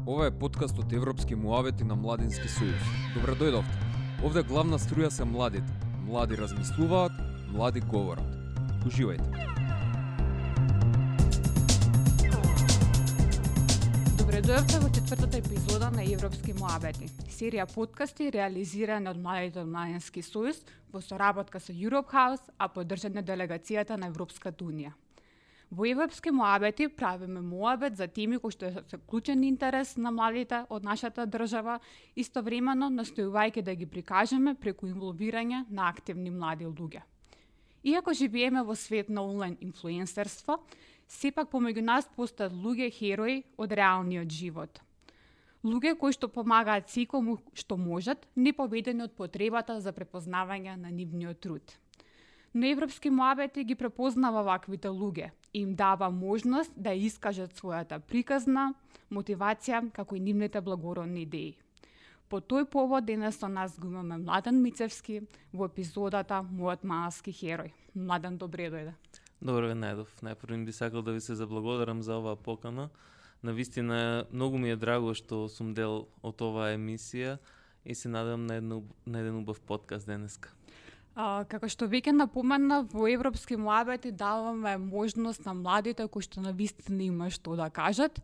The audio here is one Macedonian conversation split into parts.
Ова е подкаст од Европски муавети на Младински сојуз. Добре дојдовте. Овде главна струја се младите. Млади размислуваат, млади говорат. Уживајте. Добре дојдовте во четвртата епизода на Европски муавети. Серија подкасти реализирана од младите од Младински сојуз во соработка со Europe House, а поддржана делегацијата на Европската унија. Во Европски муавети правиме муабет за теми кои што се клучен интерес на младите од нашата држава, истовремено настојувајќи да ги прикажеме преку инволвирање на активни млади луѓе. Иако живееме во свет на онлайн инфлуенсерство, сепак помеѓу нас постојат луѓе херои од реалниот живот. Луѓе кои што помагаат секому што можат, не поведени од потребата за препознавање на нивниот труд. Но Европски муабети ги препознава ваквите луѓе и им дава можност да искажат својата приказна, мотивација, како и нивните благородни идеи. По тој повод денес со нас го имаме Младен Мицевски во епизодата Мојот малски херој. Младен, добре дојде. Добро ве најдов. Најпрво би сакал да ви се заблагодарам за оваа покана. Навистина многу ми е драго што сум дел од оваа емисија и се надевам на еден убав подкаст денеска. Како што веќе напомена, во Европски муабети даваме можност на младите кои што навистина има што да кажат.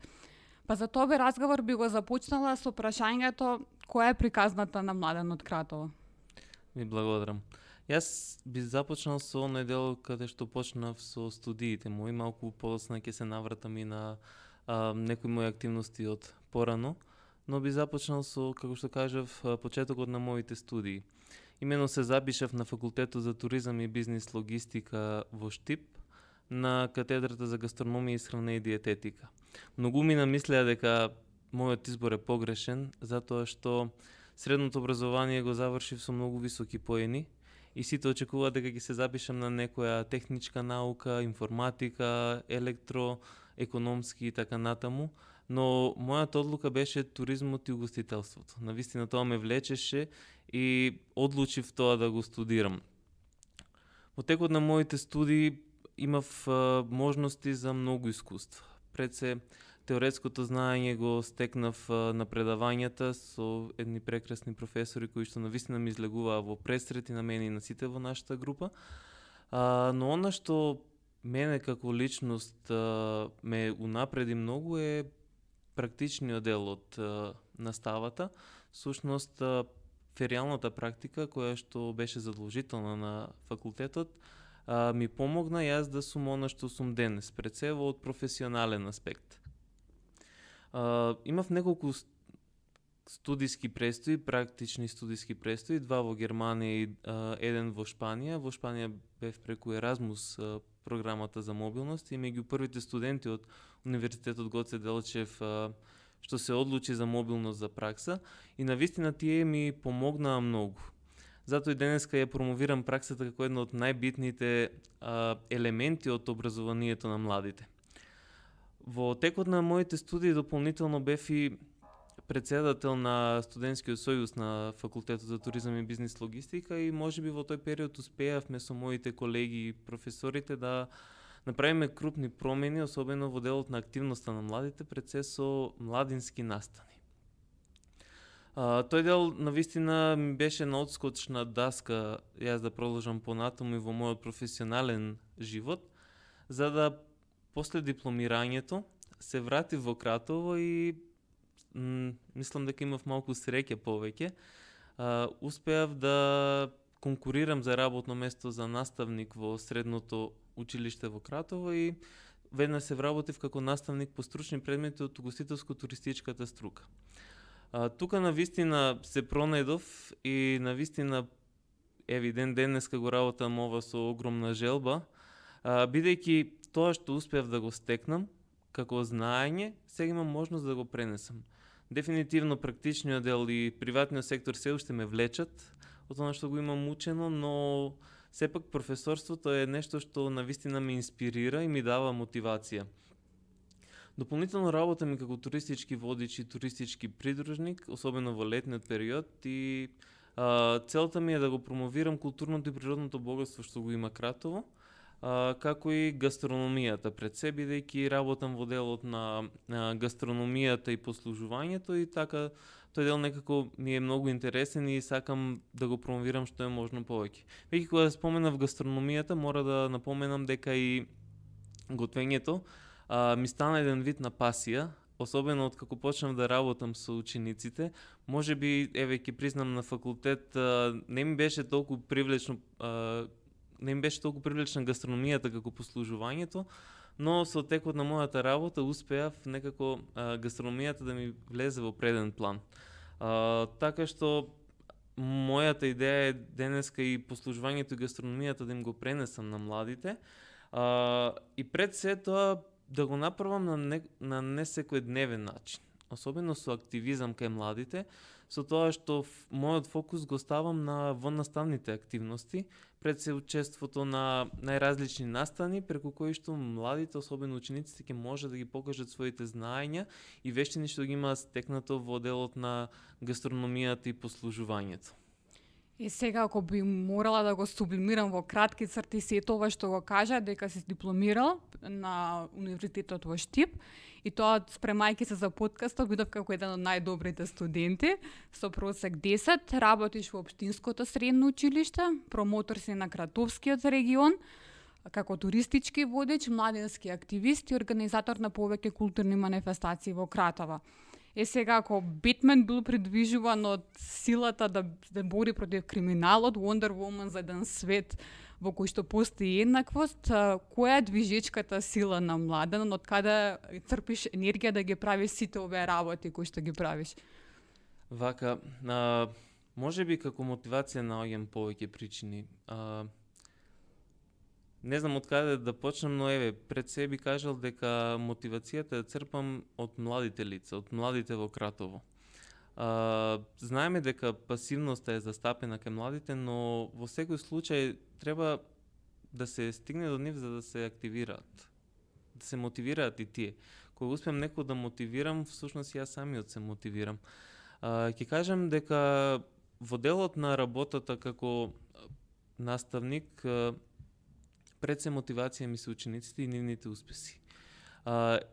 Па за тоа разговор би го започнала со прашањето која е приказната на Младен од Кратово. Ви благодарам. Јас би започнал со оној дел каде што почнав со студиите мои, малку подоцна ќе се навратам и на некои мои активности од порано, но би започнал со, како што кажав, почетокот на моите студии. Имено се запишав на факултетот за туризам и бизнис логистика во Штип, на катедрата за гастрономија, исхрана и диететика. Многу ми намислеа дека мојот избор е погрешен, затоа што средното образование го завршив со многу високи поени и сите очекуваат дека ќе се запишам на некоја техничка наука, информатика, електро, економски и така натаму, но мојата одлука беше туризмот и угостителството. Навистина тоа ме влечеше и одлучив тоа да го студирам. Во текот на моите студии имав можности за многу искуства. Пред се теоретското знаење го стекнав на предавањата со едни прекрасни професори кои што навистина ми излегуваа во пресрети на мене и на сите во нашата група. Но она што мене како личност ме унапреди многу е практичниот дел од наставата, всушност феријалната практика која што беше задолжителна на факултетот ми помогна јас да сум она што сум денес, пред се од професионален аспект. Имав неколку студиски престои, практични студиски престои, 2 во Германија и 1 во Шпанија. Во Шпанија бев преку Еразмус програмата за мобилност и меѓу првите студенти од Универзитетот Гоце Делчев што се одлучи за мобилност за пракса и навистина тие ми помогнаа многу. Затоа и денеска ја промовирам праксата како една од најбитните елементи од образованието на младите. Во текот на моите студии дополнително бев и председател на студентскиот сојуз на факултетот за туризам и бизнис логистика и можеби во тој период успеавме со моите колеги и професорите да направиме крупни промени, особено во делот на активноста на младите, пред се со младински настани. Тој дел навистина ми беше на одскочна даска јас да продолжам понатаму и во мојот професионален живот, за да после дипломирањето се вратив во Кратово и мислам дека имав малку среќа повеќе. Успеав да конкурирам за работно место за наставник во средното училиште во Кратово и веднаш се вработив како наставник по стручни предмети од угостителско-туристичката струка. Тука навистина се пронајдов и навистина евидент денеска го работам ова со огромна желба, бидејќи тоа што успеав да го стекнам како знаење, сега имам можност да го пренесам. Дефинитивно практичниот дел и приватниот сектор се уште ме влечат од тоа што го имам учено, но сепак професорството е нешто што навистина ме инспирира и ми дава мотивација. Дополнително работам и како туристички водич и туристички придружник, особено во летниот период и целта ми е да го промовирам културното и природното богатство што го има Кратово, како и гастрономијата пред се, бидејќи работам во делот на гастрономијата и послужувањето и така тој дел некако ми е многу интересен и сакам да го промовирам што е можно повеќе. Веќе кога споменав гастрономијата, мора да напоменам дека и готвењето ми стана еден вид на пасија, особено од како почнав да работам со учениците. Можеби, еве ќе признам, на факултет не ми беше толку привлечна гастрономијата како послужувањето, но со текот на мојата работа успеав некако гастрономијата да ми влезе во преден план. Така што мојата идеја е денеска и послужувањето и гастрономијата да им го пренесам на младите, и пред се тоа да го направам на не секојдневен начин, особено со активизам кај младите, со тоа што мојот фокус го ставам на воннаставните активности, пред се учеството на најразлични настани, преку кои што младите, особено учениците, ќе може да ги покажат своите знаења и вештини што ги има стекнато во делот на гастрономијата и послужувањето. И сега, ако би морала да го сублимирам во кратки црти сето ова што го кажа, дека си дипломирал на Универзитетот во Штип, и тоа спремајќи се за подкастот, бидов како еден од најдобрите студенти, со просек 10, работиш во Општинското средно училиште, промотор си на Кратовскиот регион, како туристички водеч, младински активист и организатор на повеќе културни манифестации во Кратово. Сега, ако Бетмен бил придвижуван од силата да бори против криминалот, Wonder Woman за еден свет во кој што постои еднаквост, која е движечката сила на Младен, од каде црпиш енергија да ги правиш сите овие работи кои што ги правиш? Вака, можеби како мотивација наоѓам повеќе причини. Не знам од каде да почнам, но еве, пред себе би кажал дека мотивацијата ја црпам од младите лица, од младите во Кратово. Знаеме дека пасивноста е застапена кај младите, но во секој случај треба да се стигне до нив за да се активираат, да се мотивираат и тие. Кога успеам некој да мотивирам, всушност јас самиот се мотивирам. Ќе кажам дека во делот на работата како наставник, пред се мотивација ми се учениците и нивните успеси.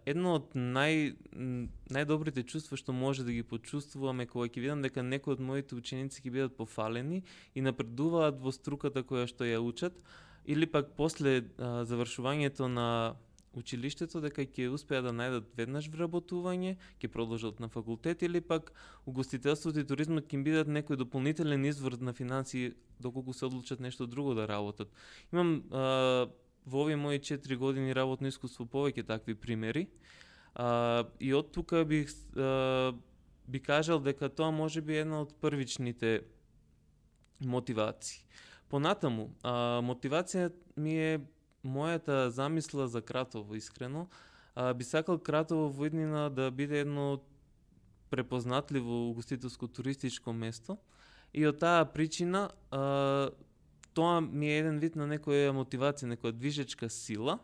Едно од најдобрите чувства што може да ги почувствуваме кога ќе видам дека некои од моите ученици ќе бидат пофалени и напредуваат во струката која што ја учат, или пак после завршувањето на училиштето дека ќе успеат да најдат веднаш вработување, ќе продолжат на факултет, или пак угостителството и туризмот ќе им бидат некој дополнителен извор на финансии доколку се одлучат нешто друго да работат. Имам во овие мои 4 години работно искуство повеќе такви примери, и од тука би кажал дека тоа може би една од првичните мотивации. Понатаму, мотивација ми е мојата замисла за Кратово, искрено. Би сакал Кратово во иднина да биде едно препознатливо угостителско-туристичко место, и од таа причина тоа ми е еден вид на некоја мотивација, некоја движечка сила.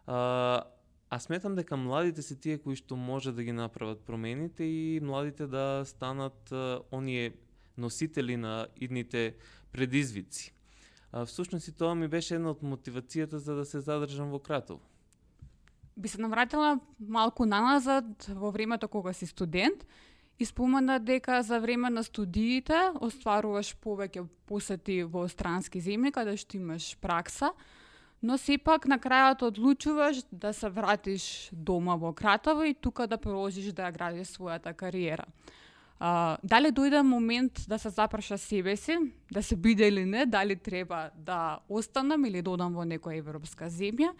А сметам дека младите се тие кои што може да ги направат промените и младите да станат оние носители на идните предизвици. Всушност и тоа ми беше една од мотивацијата за да се задржам во Кратово. Би се навратила малку наназад во времето кога си студент и спомена дека за време на студиите остваруваш повеќе посети во странски земји каде што имаш пракса, но сепак на крајот одлучуваш да се вратиш дома во Кратово и тука да продолжиш да ја градиш својата кариера. Дали дојде момент да се запраша себе си, да се биде или не, дали треба да останам или да одам во некоја европска земја,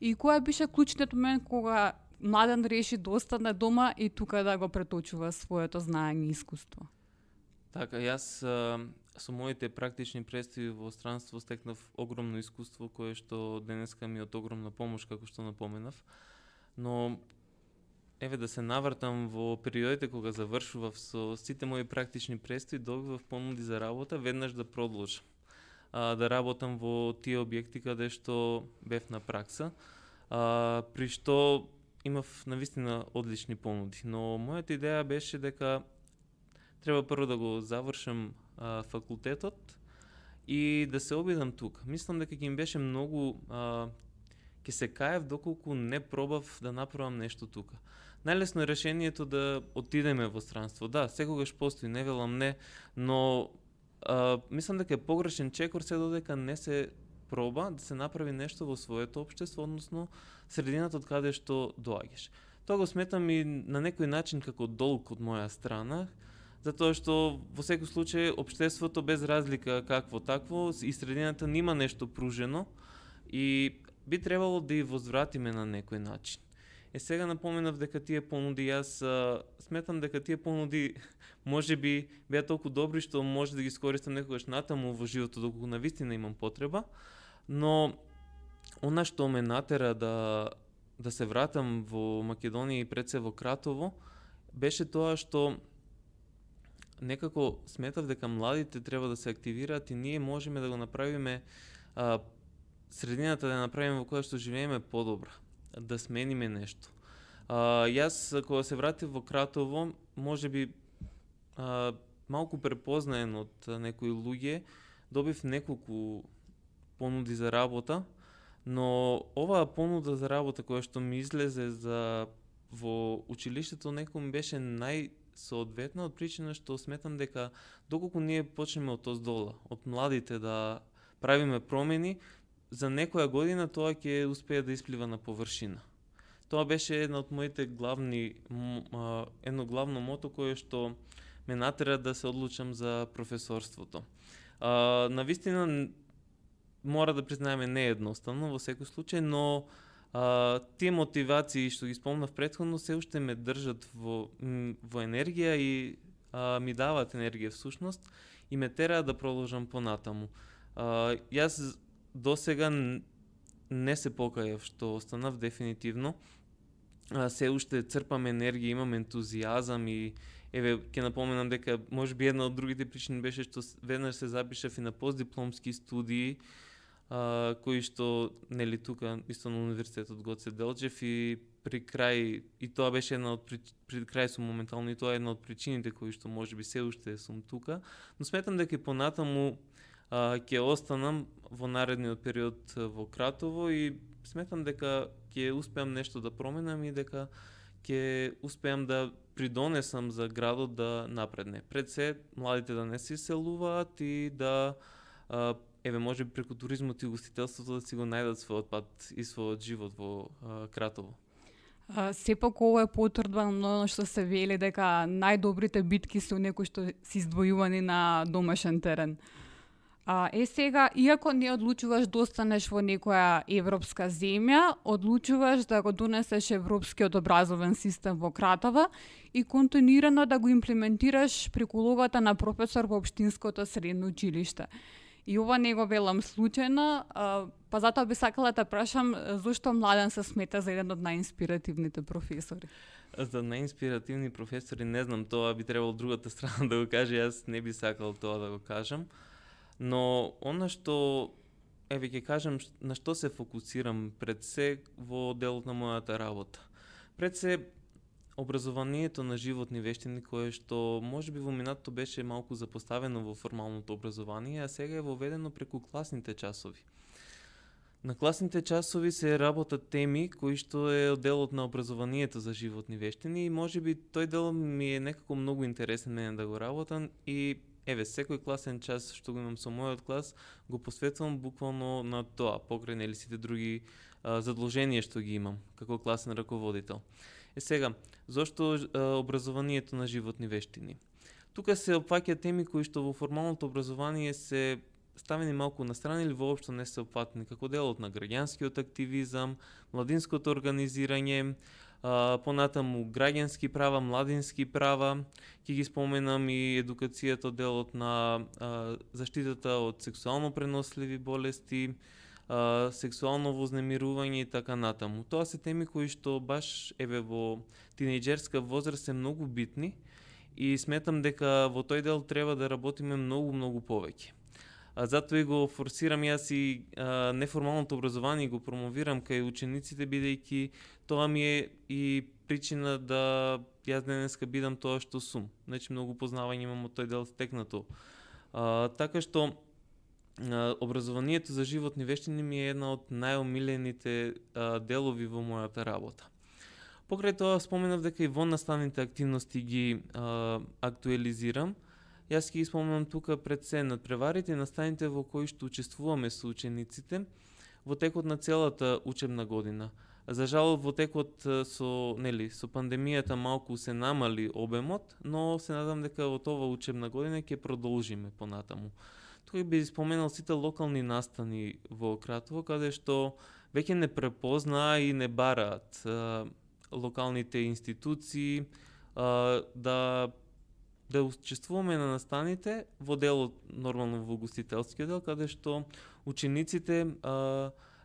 и која беше клучниот момент кога Младен реши да остане дома и тука да го преточува своето знаење и искуство? Така, јас со моите практични представи во странство стекнав огромно искуство кое што денеска ми е од огромна помош, како што напоменав, но еве да се навртам во периодите кога завршував со сите мои практични представи, добивав понуди за работа веднаш да продолжам да работам во тие објекти каде што бев на пракса, при што имав навистина одлични понуди, но мојата идеја беше дека треба прво да го завршам факултетот и да се обидам тука. Мислам дека ќе им беше многу ќе се каев доколку не пробав да направам нешто тука. Најлесно е решението да отидеме во странство. Да, секогаш постои, не велам не, но мислам дека е погрешен чекор се додека не се проба да се направи нешто во своето општество, односно средината од каде што доаѓаш. Тоа го сметам и на некој начин како долг од моја страна, затоа што во секој случај општеството без разлика какво такво и средината нема нешто пружено и би требало да ја возвратиме на некој начин. Сега напоменав дека тие понуди, јас сметам дека тие понуди можеби беа толку добри што може да ги искористам некогаш натаму во животот доколку навистина имам потреба, но она што ме натера да се вратам во Македонија и пред се во Кратово беше тоа што некако сметав дека младите треба да се активираат и ние можеме да го направиме средината да направиме во која што живееме подобра, да смениме нешто. Јас кога се вратив во Кратово, можеби малку препознаен од некои луѓе, добив неколку понуди за работа, но оваа понуда за работа која што ми излезе во училиштето некој ми беше најсоодветна од причина што сметам дека доколку ние почнеме од оздола, од младите да правиме промени, за некоја година тоа ќе успее да исплива на површина. Тоа беше една од моите едно главно мото кое што ме натера да се одлучам за професорството. Навистина мора да признаеме не е едноставно во секој случај, но тие мотивации што ги спомнав претходно се уште ме држат во енергија и ми даваат енергија всушност и ме тераат да продолжам понатаму. Јас досега не се покајав што останав дефинитивно. Се уште црпам енергија, имам ентузијазам и еве ќе напоменам дека можеби една од другите причини беше што веднаш се запишав и на постдипломски студии кои што нели тука исто на универзитетот Гоце Делчев и при крај и тоа беше една од при крај сум моментално и тоа е една од причините кои што можеби се уште сум тука, но сметам дека понатаму ќе останам во наредниот период во Кратово и сметам дека ќе успеам нешто да променам и дека ќе успеам да придонесам за градот да напредне. Пред се, младите да не се иселуваат и да еве може преку туризмот и гостителството да си го најдат својот пат и својот живот во Кратово. Сепак ова е потврдба на оно што се вели дека најдобрите битки се некои што се издвојувани на домашен терен. Сега, иако не одлучуваш да останеш во некоја европска земја, одлучуваш да го донесеш европскиот образовен систем во Кратово и континуирано да го имплементираш преку улогата на професор во општинското средно училиште. И ова не го велам случајно, па затоа би сакала да прашам зошто Младен се смета за еден од најинспиративните професори. За најинспиративни професори не знам, тоа би требало другата страна да го каже, јас не би сакал тоа да го кажам. Но она што, еве ќе кажам на што се фокусирам пред се во делот на мојата работа. Пред се образованието на животни вештини кое што можеби во минатото беше малку запоставено во формалното образование, а сега е воведено преку класните часови. На класните часови се работат теми кои што е делот на образованието за животни вештини и можеби тој дел ми е некако многу интересен мене да го работам и еве, секој класен час што го имам со мојот клас, го посветувам буквално на тоа, покрај нели сите други задолженија што ги имам како класен раководител. Сега, зошто образованието на животни вештини? Тука се опфаќаат теми кои што во формалното образование се ставени малку на страна или воопшто не се опфатени, како делот на граѓанскиот активизам, младинското организирање, понатаму граѓански права, младински права, ќе ги споменам и едукацијата, делот на заштитата од сексуално преносливи болести, сексуално вознемирување и така натаму. Тоа се теми кои што баш еве во тинејџерска возраст се многу битни и сметам дека во тој дел треба да работиме многу повеќе. Затоа и го форсирам јас и неформалното образование го промовирам кај учениците, бидејќи тоа ми е и причина да јас денеска бидам тоа што сум. Значи многу познавање имам од тој дел стекнато. Така што образованието за животни вештини ми е една од најомилените делови во мојата работа. Покрај тоа споменав дека и во наставните активности ги актуализирам. Јас ќе ги споменам тука пред се надпреварите и наставите во кои што учествуваме со учениците во текот на целата учебна година. За жал во текот со пандемијата малку се намали обемот, но се надам дека од ова учебна година ќе продолжиме понатаму. Тука би споменал сите локални настани во Кратово, каде што веќе не препознаа и не бараат локалните институции да учествуваме на настаните во делот, нормално во гостителскиот дел, каде што учениците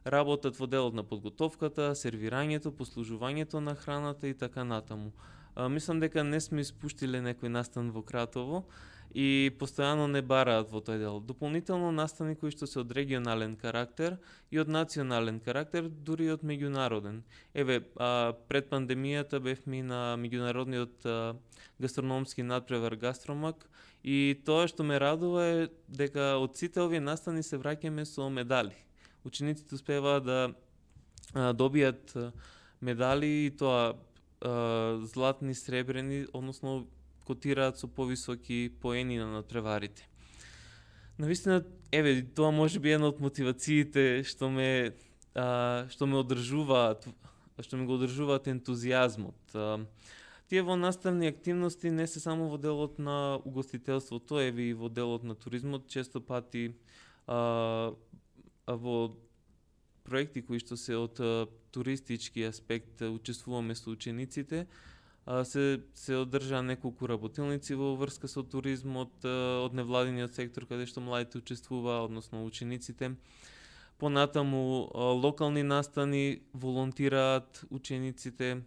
работат во делот на подготовката, сервирањето, послужувањето на храната и така натаму. Мислам дека не сме испуштиле некој настан во Кратово и постојано не бараат во тој дел. Дополнително настани кои што се од регионален карактер и од национален карактер, дури и од меѓународен. Пред пандемијата бевме на меѓународниот гастрономски надпревар Гастромак и тоа што ме радува е дека од сите овие настани се враќаме со медали. Учениците успеваат да добијат медали и тоа златни, сребрени, односно котираат со повисоки поени на надпреварите. Навистина, тоа може би една од мотивациите што ме одржуваат, што ми го одржуваат ентузијазмот. Тие во наставни активности не се само во делот на угостителството, и во делот на туризмот, често пати во проекти кои што се од туристички аспект учествуваме со учениците, се одржаа неколку работилници во врска со туризмот од невладиниот сектор каде што младите учествуваа, односно учениците. Понатаму локални настани волонтираат учениците.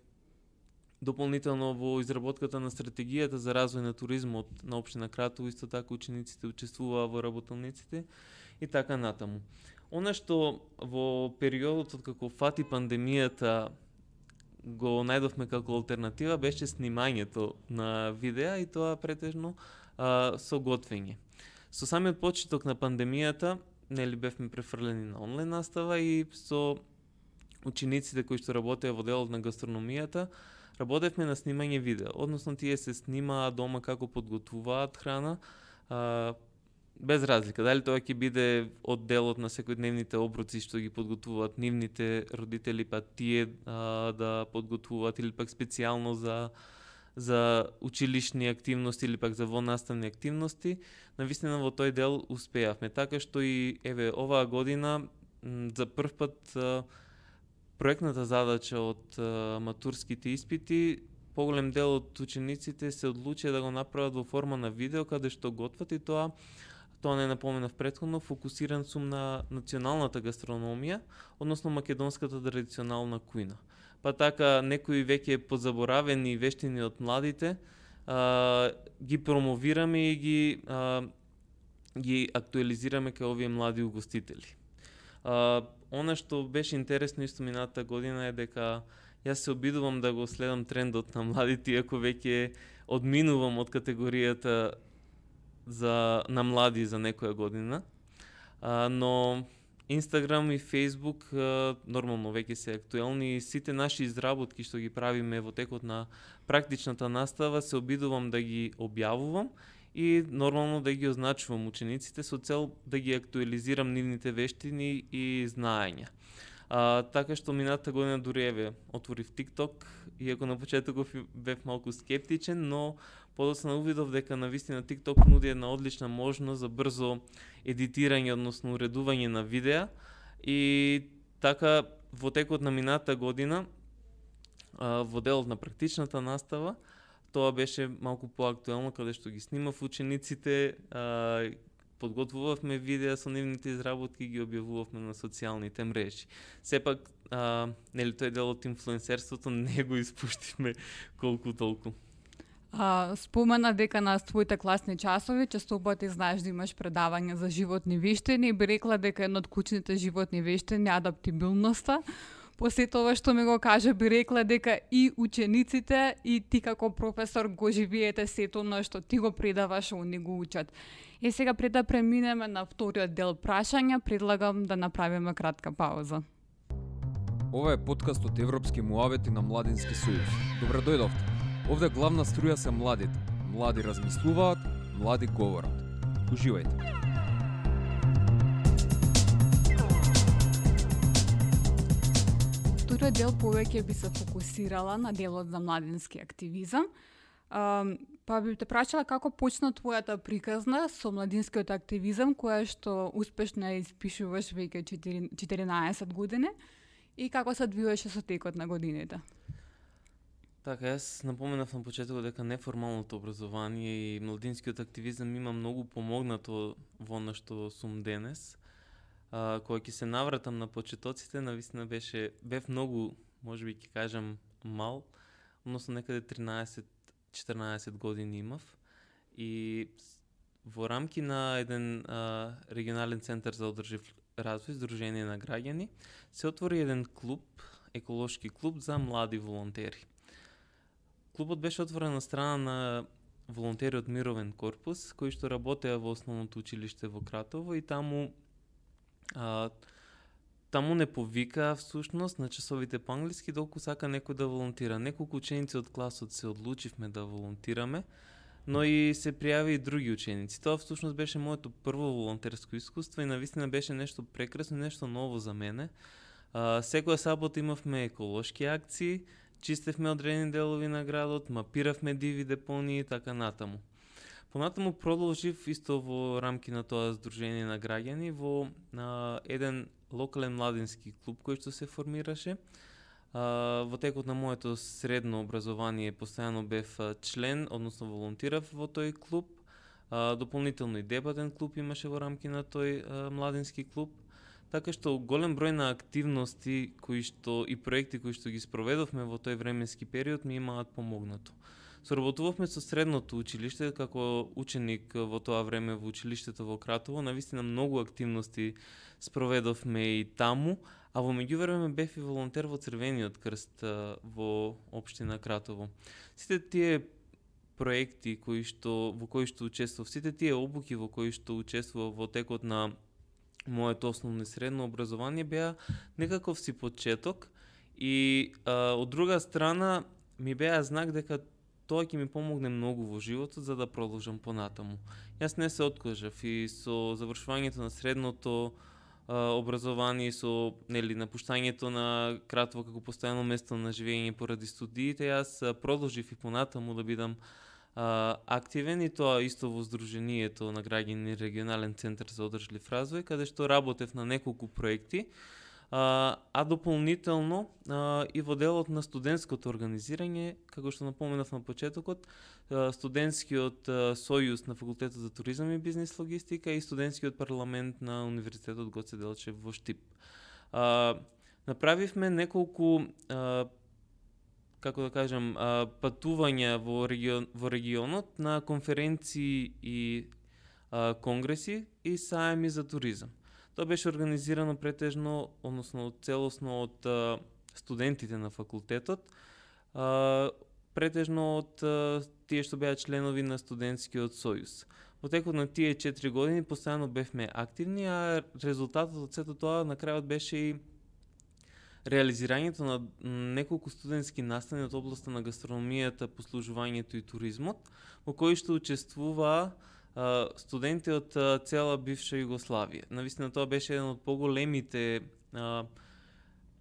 Дополнително во изработката на стратегијата за развој на туризмот на општина Кратово исто така учениците учествуваа во работилниците и така натаму. Она што во периодот откако фати пандемијата го најдовме како алтернатива беше снимањето на видеа и тоа претежно со готвење. Со самиот почеток на пандемијата, бевме префрлени на онлайн настава и со учениците кои што работеа во делот на гастрономијата, работевме на снимање видеа. Односно тие се снимаа дома како подготвуваат храна, без разлика, дали тоа ќе биде од делот на секојдневните оброци што ги подготвуваат нивните родители, па тие да подготвуваат или пак специјално за училишни активности или пак за вонаставни активности, навистина во тој дел успеавме. Така што и оваа година за прв пат проектната задача од матурските испити, поголем дел од учениците се одлучија да го направат во форма на видео каде што готват и тоа не напоменав претходно, фокусиран сум на националната гастрономија, односно македонската традиционална кујна. Па така некои веќе позаборавени вештини од младите ги промовираме и ги актуализираме кај овие млади угостители. Она што беше интересно исто минатата година е дека јас се обидувам да го следам трендот на младите, иако веќе одминувам од категоријата на млади за некоја година, но Инстаграм и Фейсбук нормално веќе се актуелни и сите наши изработки што ги правиме во текот на практичната настава се обидувам да ги објавувам и нормално да ги означувам учениците со цел да ги актуализирам нивните вештини и знаења. Така што минатата година дури отворив TikTok, иако на почетоков бев малку скептичен, но подоцна увидов дека навистина TikTok нуди една одлична можност за брзо едитирање, односно уредување на видеа и така во текот на минатата година во делот на практичната настава тоа беше малку поактуелно каде што ги снимав учениците, подготвувавме видеа со нивните изработки и ги објавувавме на социјалните мрежи. Сепак, тој дел од инфлуенсерството не го испуштивме колку толку. Спомена дека на твоите класни часови често пати знаеш да имаш предавање за животни вештини и би рекла дека едно од клучните животни вештини е адаптибилноста. по сето ова што ми го кажа, би рекла дека и учениците и ти како професор го живеете сето оно што ти го предаваш, они го учат. Сега пред да преминеме на вториот дел прашања, предлагам да направиме кратка пауза. Ова е подкаст од Европски муавети на Младински сојуз. Добре дојдовте. Овде главна струја се младите. Млади размислуваат, млади говорат. Уживајте. Вториот дел повеќе би се фокусирала на делот за младински активизам. Па би те прашала како почна твојата приказна со младинскиот активизам, која што успешно ја испишуваш веќе 14 години и како се одвиваше со текот на годините. Така, јас напоменав на почетокот дека неформалното образование и младинскиот активизам има многу помогнато во она што сум денес. Кога ќе се навратам на почетоците, навистина бев многу, можеби ќе кажам, мал, односно некаде 13-14 години имав и во рамки на еден регионален центар за одржив развој, Сдружение на граѓани, се отвори еден клуб, еколошки клуб за млади волонтери. Клубот беше отворен на страна на волонтери од Мировен корпус, кои што работеа во основното училиште во Кратово и таму не повика всушност на часовите по англиски долку сака некој да волонтира. Неколку ученици од класот се одлучивме да волонтираме, но и се пријави и други ученици. Тоа всушност беше моето прво волонтерско искуство и навистина беше нешто прекрасно, нешто ново за мене. Секоја сабота имавме еколошки акции, чистевме одредени делови на градот, мапиравме диви депонии и така натаму. Понатаму продолжив исто во рамки на тоа Сдружение на граѓани во еден локален младински клуб кој што се формираше. Во текот на моето средно образование постојано бев член, односно волонтирав во тој клуб. Дополнително и дебатен клуб имаше во рамки на тој младински клуб. Така што голем број на активности и проекти кои што ги спроведовме во тој временски период ми имаат помогнато. Соработувавме со средното училиште како ученик во тоа време во училиштето во Кратово. Навистина многу активности спроведовме и таму, а во меѓувреме бев и волонтер во Црвениот крст во општина Кратово. Сите тие проекти во кои што учествував, сите тие обуки во кои што учествував во текот на моето основно и средно образование беа некаков си почеток и од друга страна ми беа знак дека тоа ќе ми помогне многу во животот за да продолжам понатаму. Јас не се откажав и со завршувањето на средното образование, со напуштањето на Кратово како постојано место на живење поради студиите, јас продолжив и понатаму да бидам активен и тоа исто во Сдруженијето на граѓани регионален центар за одржлив развој, каде што работев на неколку проекти, а дополнително и во делот на студентското организирање, како што напоменав на почетокот, студентскиот сојуз на факултетот за туризам и бизнис логистика и студентскиот парламент на Универзитетот Гоце Делчев во Штип. Направивме неколку патувања во регионот на конференции и конгреси и саеми за туризам. Тоа беше организирано претежно, односно целосно од студентите на факултетот, претежно од тие што беа членови на студентскиот сојуз. Во текот на тие 4 години постојано бевме активни, а резултатот од сето тоа на крајот беше и реализирањето на неколку студентски настани од областа на гастрономијата, послужувањето и туризмот, во кои што учествуваа студенти од цела бивша Југославија. Навистина тоа беше еден од поголемите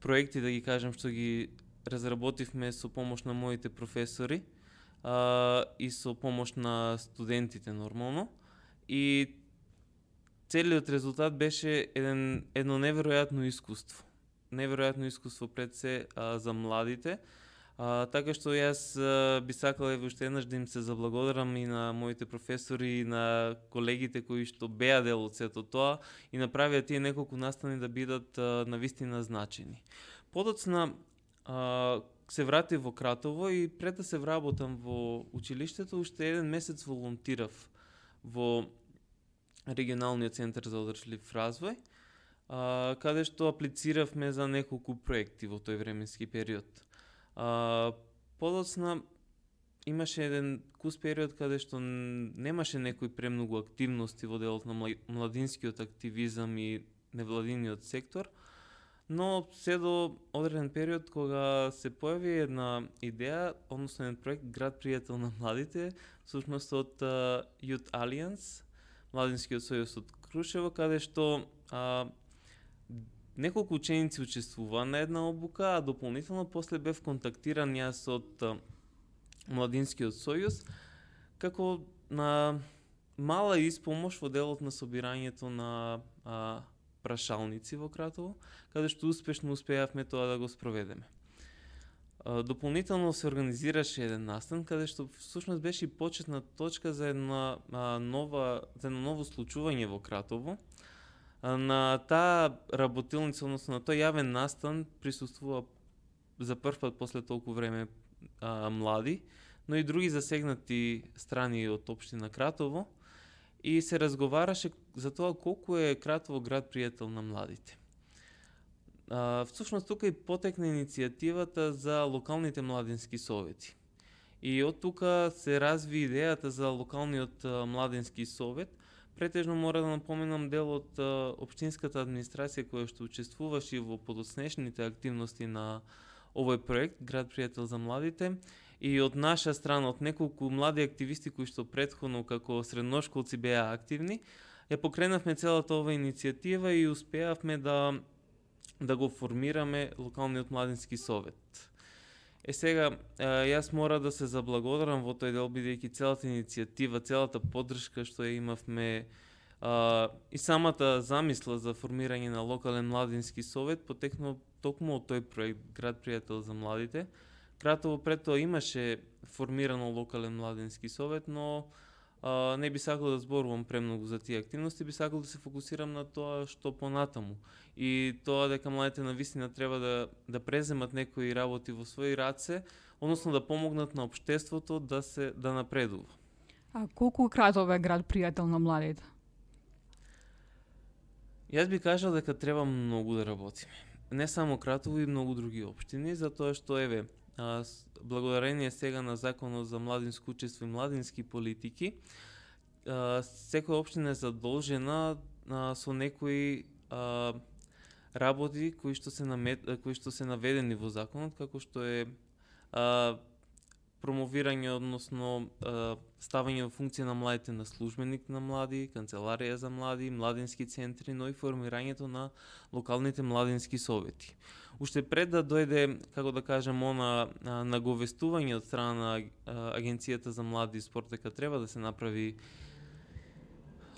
проекти, да ги кажам, што ги разработивме со помош на моите професори и со помош на студентите нормално. И целиот резултат беше едно неверојатно искуство. Неверојатно искуство пред се за младите. Така што јас би сакала уште еднаш да им се заблагодарам и на моите професори и на колегите кои што беа дел од сето тоа и направија тие неколку настани да бидат навистина значени. Подоцна се вратив во Кратово и пред да се вработам во училиштето, уште еден месец волонтирав во регионалниот центар за одржлив развој. каде што аплициравме за неколку проекти во тој временски период. Подоцна имаше еден кус период каде што немаше некои премногу активности во делот на младинскиот активизам и невладиниот сектор, но се до одреден период кога се појави една идеја, односно еден проект Град пријател на младите, всушност од Youth Alliance, Младинскиот сојуз од Крушево, каде што неколку ученици учествуваа на една обука, а дополнително после бев контактиран јас од Младинскиот сојуз, како на мала испомош во делот на собирањето на прашалници во Кратово, каде што успешно успеавме тоа да го спроведеме. Дополнително се организираше еден настан, каде што всушност беше почетна точка за едно ново случување во Кратово. На таа работилница, односно на тој јавен настан, присуствува за прв пат после толку време млади, но и други засегнати страни од општина Кратово, и се разговараше за тоа колку е Кратово град пријател на младите. Всушност тука и потекна иницијативата за локалните младински совети. И од тука се разви идејата за локалниот младински совет. Претежно мора да напоменам дел од општинската администрација која што учествуваше во подоцнешните активности на овој проект Град пријател за младите, и од наша страна, од неколку млади активисти кои што претходно како средношколци беа активни, ја покренавме целата ова иницијатива и успеавме да го формираме локалниот младински совет. Сега, јас мора да се заблагодарам во тој дел, бидејќи целата иницијатива, целата поддршка што ја имавме и самата замисла за формирање на локален младински совет потекнува токму од тој проект Град пријател за младите. Кратово пред тоа имаше формирано локален младински совет, но не би сакал да зборувам премногу за тие активности, би сакал да се фокусирам на тоа што понатаму. И тоа дека младите навистина треба да преземат некои работи во своји раце, односно да помогнат на општеството да напредува. А колку Кратово е град пријател на младите? Јас би кажал дека треба многу да работиме. Не само Кратово, и многу други општини, затоа што благодарение сега на Законот за младинско учество и младински политики, секоја општина е задолжена со некои работи кои што се наведени во законот, како што е промовирање, односно ставање во функција на младите на службеник на млади, канцеларија за млади, младински центри, но и формирањето на локалните младински совети. Уште пред да дојде, како да кажем, наговестување од страна на Агенцијата за млади и спорт дека треба да се направи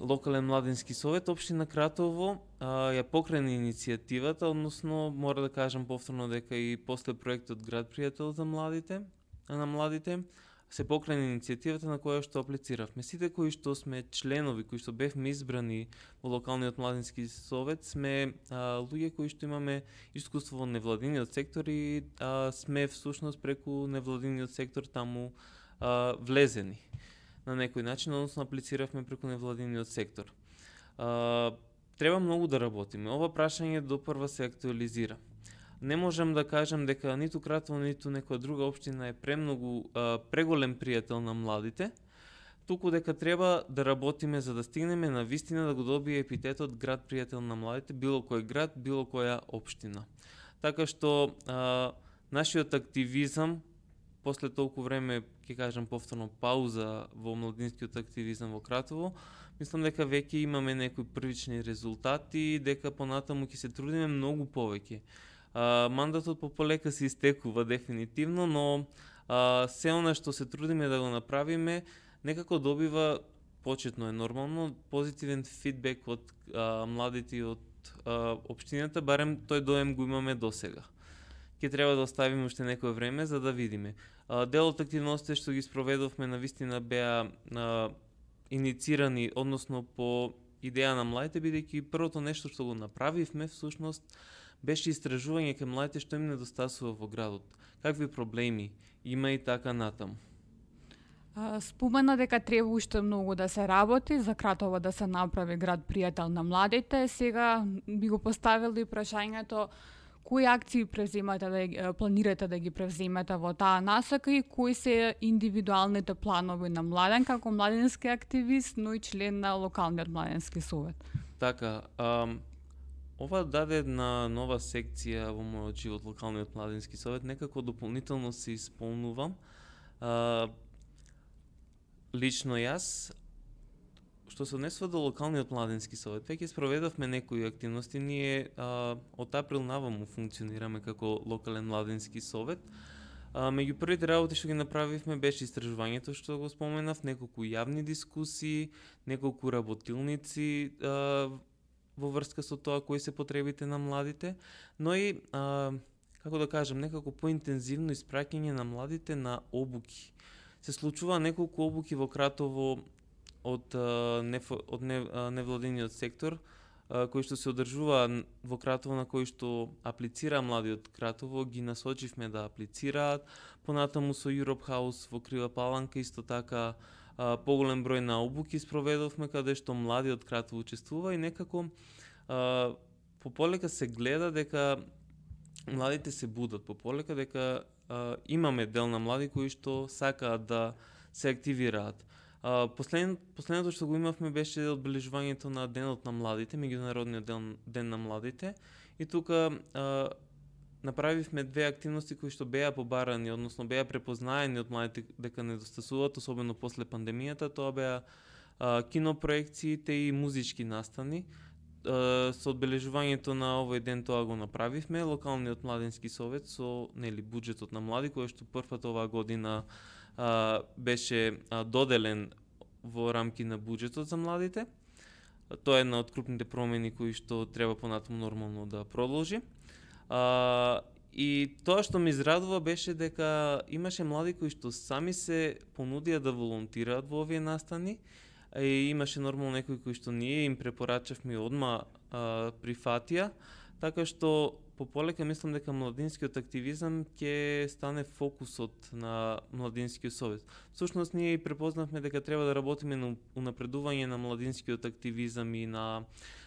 локален младински совет, општина Кратово ја покрена иницијативата, односно мора да кажам повторно дека и после проектот Град пријател за младите се покрена иницијативата на која што аплициравме. Сите кои што сме членови, кои што бевме избрани во локалниот младински совет, сме луѓе кои што имаме искуство во невладиниот сектор и сме всушност преку невладиниот сектор таму влезени на некој начин, односно аплициравме преку невладиниот сектор. Треба многу да работиме. Ова прашање допрва се актуализира. Не можам да кажам дека ниту Кратово, ниту некоја друга општина е преголем пријател на младите, туку дека треба да работиме за да стигнеме на вистина да го добие епитетот Град пријател на младите, било кој град, било која општина. Така што нашиот активизам после толку време, ќе кажам повторно, пауза во младинскиот активизам во Кратово, мислам дека веќе имаме некои првични резултати, дека понатаму ќе се трудиме многу повеќе. Мандатот полека се истекува дефинитивно, но се она што се трудиме да го направиме, некако добива, почетно е нормално, позитивен фидбек од младите и од општината, барем тој доем го имаме досега. Ќе треба да оставиме уште некое време за да видиме. Дел од активностите што ги спроведовме навистина беа иницирани, односно по идеја на младите, бидејќи првото нешто што го направивме всушност беше истражување кај младите што им недостасува во градот. Какви проблеми има и така натаму. Спомена дека треба уште многу да се работи за Кратово да се направи град пријател на младите. Сега би го поставили прашањето кои акции планирате да ги превземете во таа насока и кои се индивидуалните планови на Младен како младински активист, но и член на локалниот младински совет? Така, ова даде една нова секција во мојот живот, локалниот младински совет, некако дополнително се исполнувам. Лично јас, што се однесува до локалниот младински совет, веќе спроведовме некои активности. Ние од април наваму функционираме како локален младински совет. Меѓу првите работи што ги направивме беше истражувањето што го споменав, неколку јавни дискусии, неколку работилници во врска со тоа кои се потребите на младите, но и како да кажам, некако поинтензивно испраќање на младите на обуки. Се случува неколку обуки во Кратово од невладиниот сектор, кои што се одржува во Кратово, на кои што аплицира млади од Кратово, ги насочивме да аплицираат. Понатаму со Europe House во Крива Паланка исто така поголем број на обуки спроведовме каде што млади од Кратово учествува и некако пополека се гледа дека младите се будат, пополека дека имаме дел на млади кои што сакаат да се активираат. Последното што го имавме беше одбележувањето на Денот на младите, меѓународниот ден на младите, и тука направивме две активности кои што беа побарани, односно беа препознаени од младите дека недостасуваат, особено после пандемијата. Тоа беа кинопроекциите и музички настани. Со одбележувањето на овој ден тоа го направивме. Локалниот младински совет со буџетот на млади, кој што првпат оваа година беше доделен во рамки на буџетот за младите. Тоа е една од крупните промени кои што треба понатаму нормално да продолжи. И тоа што ме израдува беше дека имаше млади кои што сами се понудија да волонтираат во овие настани, и имаше нормално некои кои што ние им препорачавме одма прифатија, така што пополека мислам дека младинскиот активизам ќе стане фокусот на младинскиот совет. Всушност ние и препознавме дека треба да работиме на унапредување на младинскиот активизам и на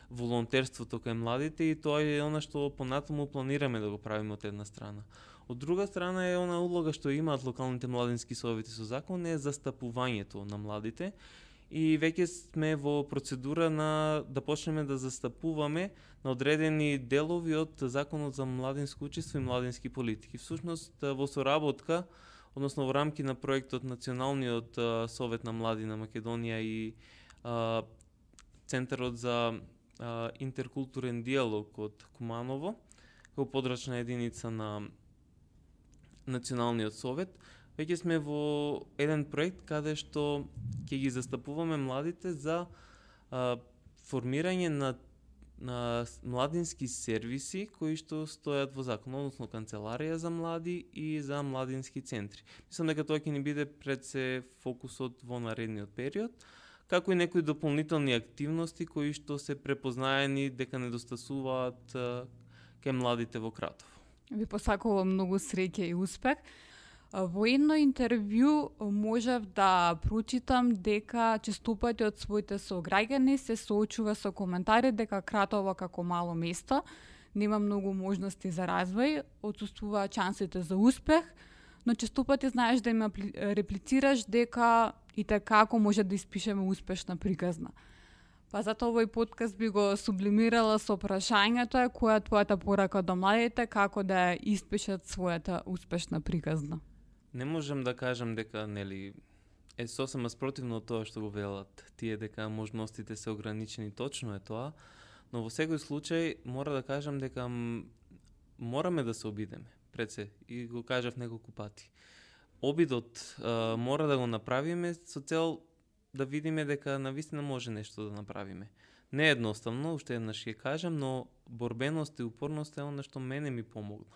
волонтерството кај младите, и тоа е она што понатаму планираме да го правиме од една страна. Од друга страна е она улога што имаат локалните младински совети со закон, е застапувањето на младите. И веќе сме во процедура да почнеме да застапуваме на одредени делови од Законот за младинско учество и младински политики. Всушност во соработка, односно во рамки на проектот Националниот совет на млади на Македонија и Центарот за интеркултурен диалог од Куманово, како подрачна единица на Националниот совет, веќе сме во еден проект каде што ќе ги застапуваме младите за формирање на младински сервиси кои што стојат во закон, односно канцеларија за млади и за младински центри. Мислам дека тоа ќе ни биде пред се фокусот во наредниот период, како и некои дополнителни активности кои што се препознаени дека недостасуваат кај младите во Кратово. Ви посакувам многу среќа и успех. Во едно интервју можев да прочитам дека честопати од своите сограѓани се соочува со коментари дека Кратово како мало место нема многу можности за развој, отсуствуваат шансите за успех, но честопати знаеш да им реплицираш дека и така ако може да испишеме успешна приказна. Па затоа овој подкаст би го сублимирала со прашањето која е твојата порака до младите како да испишат својата успешна приказна. Не можам да кажам дека е сосема спротивно од тоа што го велат тие дека можностите се ограничени, точно е тоа, но во секој случај мора да кажам дека мораме да се обидеме пред се, и го кажав неколку пати. Обидот мора да го направиме со цел да видиме дека навистина може нешто да направиме. Не е едноставно, уште еднаш ќе кажам, но борбеност и упорност е она што мене ми помогна.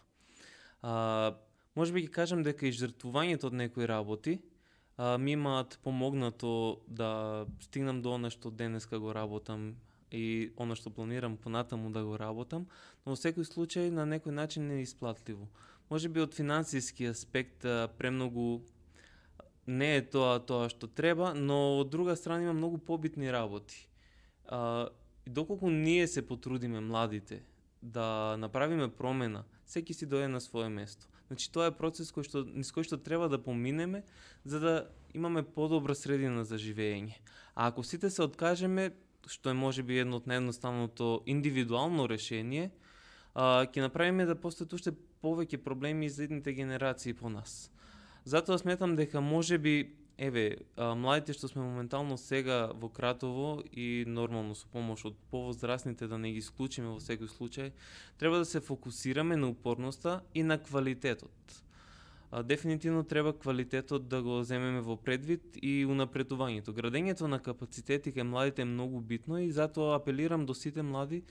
Може би ќе кажам дека и жртвувањето од некои работи ми имаат помогнато да стигнам до она што денеска го работам и она што планирам понатаму да го работам, но во секој случај на некој начин не е исплатливо. Може би од финансиски аспект премногу не е тоа што треба, но од друга страна има многу побитни работи. И доколку ние се потрудиме младите да направиме промена, секи си дојде на свое место. Значи тоа е процес низ кој што треба да поминеме за да имаме подобра средина за живење. А ако сите се откажеме, што е можеби едно од наједноставното индивидуално решение, ќе направиме да постојат уште повеќе проблеми за идните генерации по нас. Затоа сметам дека можеби младите што сме моментално сега во Кратово и нормално со помош од повозрасните, да не ги исклучиме во секој случај, треба да се фокусираме на упорноста и на квалитетот. Дефинитивно треба квалитетот да го земеме во предвид и унапредувањето. Градењето на капацитети кај младите е многу битно и затоа апелирам до сите млади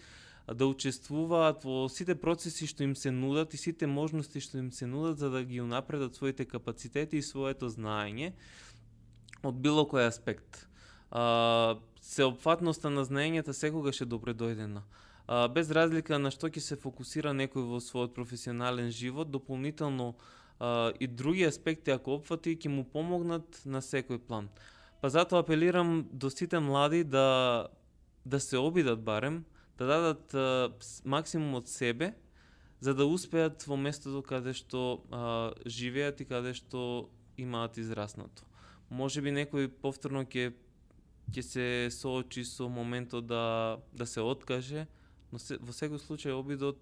да учествуваат во сите процеси што им се нудат и сите можности што им се нудат за да ги унапредат своите капацитети и своето знаење од било кој аспект. Сеопфатноста на знаењата секогаш е добре дојдена. Без разлика на што ќе се фокусира некој во својот професионален живот, дополнително и други аспекти ако опфати ќе му помогнат на секој план. Па затоа апелирам до сите млади да се обидат барем, да дадат максимум од себе, за да успеат во местото каде што живеат и каде што имаат израснато. Можеби некој повторно ќе се соочи со моментот да се откаже, но во секој случај обидот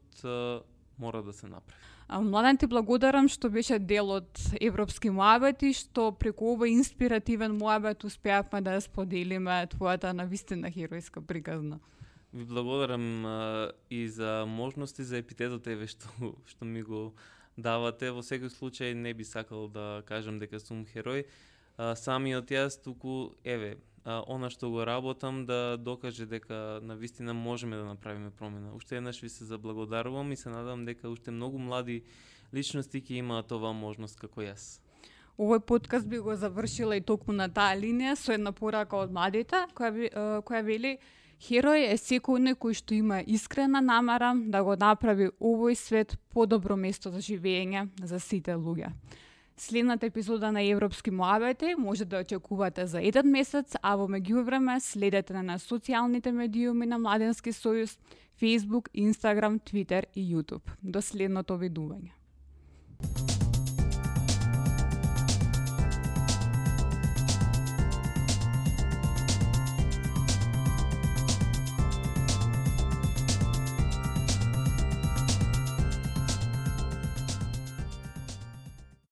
мора да се направи. Младен, ти благодарам што беше дел од Европски муабети, што преку овој инспиративен муабет успеавме да споделиме твојата навистина херојска приказна. Ви благодарам и за можности, за епитетот што ми го давате. Во секој случај не би сакал да кажам дека сум херој. Самиот јас туку, она што го работам да докаже дека навистина можеме да направиме промена. Уште еднаш ви се заблагодарувам и се надам дека уште многу млади личности ќе имаат оваа можност како јас. Овој подкаст би го завршила и токму на таа линија со една порака од младите, која вели: херој е секој кој што има искрена намера да го направи овој свет подобро место за живење за сите луѓе. Следната епизода на Европски муабети може да очекувате за 1 месец, а во меѓувреме следете на социјалните медиуми на Младенски сојуз, Facebook, Instagram, Twitter и YouTube. До следното видување.